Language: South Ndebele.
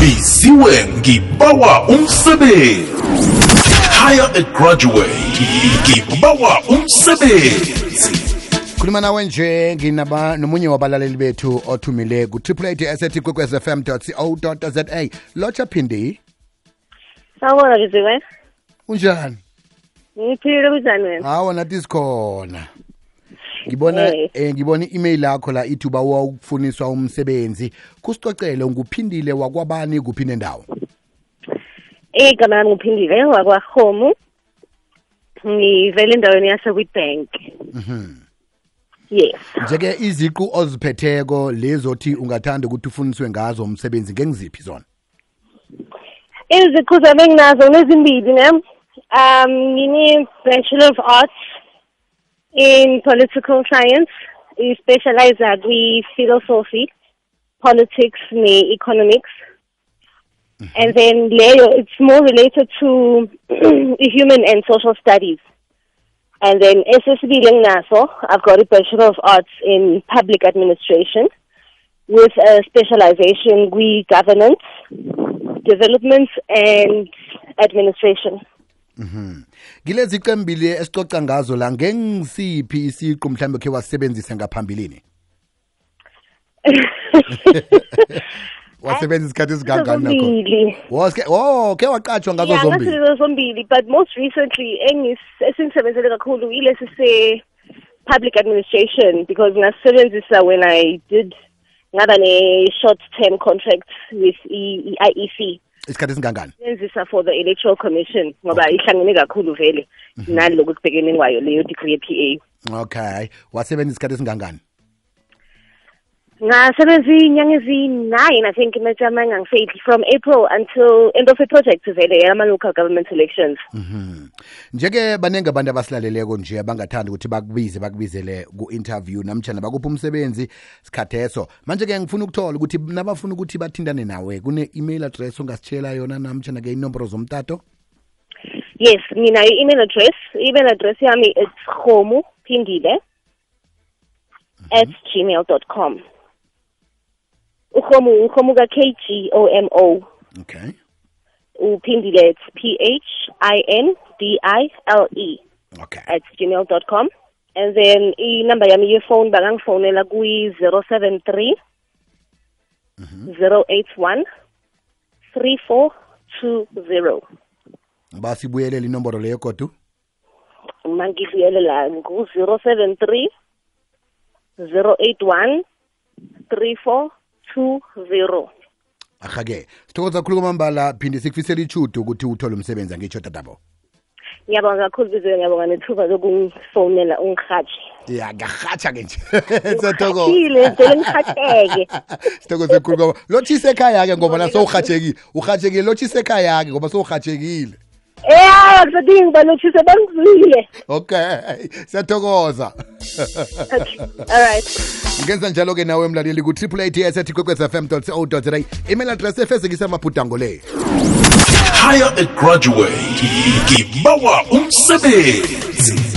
Biziwe ngibawa umsebenzi. Hire a graduate. Ngibawa umsebenzi. Khuluma nawe nje nomunye wabalaleli bethu othumile ku www.kwekwezfm.co.za. Locha Phindi. Sawubona Biziwe. Unjani? Ngiphile kunjani wena? Hawo nathi sikhona. Ngibona i-email yakho la ithi uba ukufuniswa umsebenzi. Kusicocele nguphindile wakwabani kuphi nendawo? Igama lami nguphindile wakwaHomu. Ngivele endaweni yaseWitbank. Yes. Njeke iziqu oziphetheko lezothi ungathanda ukuthi ufuniswe ngazo umsebenzi ngengiziphi zona? Iziqu zami nginazo nezimbili ne. Ngine Bachelor of Arts in Political Science. I specialize in philosophy, politics, economics. And then Leo, it's more related to human and social studies. And then SSB Lengnaso, I've got a Bachelor of Arts in Public Administration with a specialization in governance, development, and administration. Gilezi qembili esicoca ngazo la ngengisiphi isiqu mhlambe ke wasebenzisa ngaphambilini? Wasebenzisa isikhathi esigangani nakho? Ke waqatshwa ngazo zombili. Yeah, zombili, but most recently esingisebenzele kakhulu ilesi se public administration because ngasebenzisa when I did ngaba ne short term contract with IEC. Isikhathi esingangani? Sebenzisa for the Electoral Commission ngoba ihlangene kakhulu vele naloko kubhekene kwayo leyo degree PA. Okay, wasebenzisa isikhathi esingangani? Ngasebenza inyanga ezi-9 I think from April until end of the project vele ama local government elections. Njeke banenge abantu abasilaleleko nje abangathanda ukuthi bakubizele ku-interview namtjana bakupha umsebenzi sikhatheso. Manje ke ngifuna ukuthola ukuthi nabafuna ukuthi bathindane nawe kune-email address ongasitshela yona namtjana ke inomboro zomtato? Yes, mina email address yami it's khomupindile@gmail.com. Ukhomu ka KGOMO. Okay. Upindile it's PHINDILE. Okay. @gmail.com. And then number yami phone bangangifonela ku 073 081 3420. Basibuyelele inomboro leyo kodwa. Mangibuyelela ku 073 081 3420. Ahake sithokoza kakhulu kwamambala phinde sikufisela ichudo ukuthi uthole umsebenzi ngitsho tatabo. Ngiyabonga kakhulu Biziwe, ngiyabonga nethuba lokungifonela ungihatshe. Ya ngahatsha ke nje. Sithokoza. Ile ngicela ngihatsheke. Sithokoza kakhulu ngoba lothise ekhaya ke ngoba naso uhatshekile lothise ekhaya ke ngoba so uhatshekile. Kusadinga balothise bangizwile. Okay, siyathokoza. Okay. All right. Ngenza njalo ke nawe mlaleli ku www.kwekwezfm.co.za. Email address efezekisa amabhudango le. Hire a graduate. Ngibawa umsebenzi.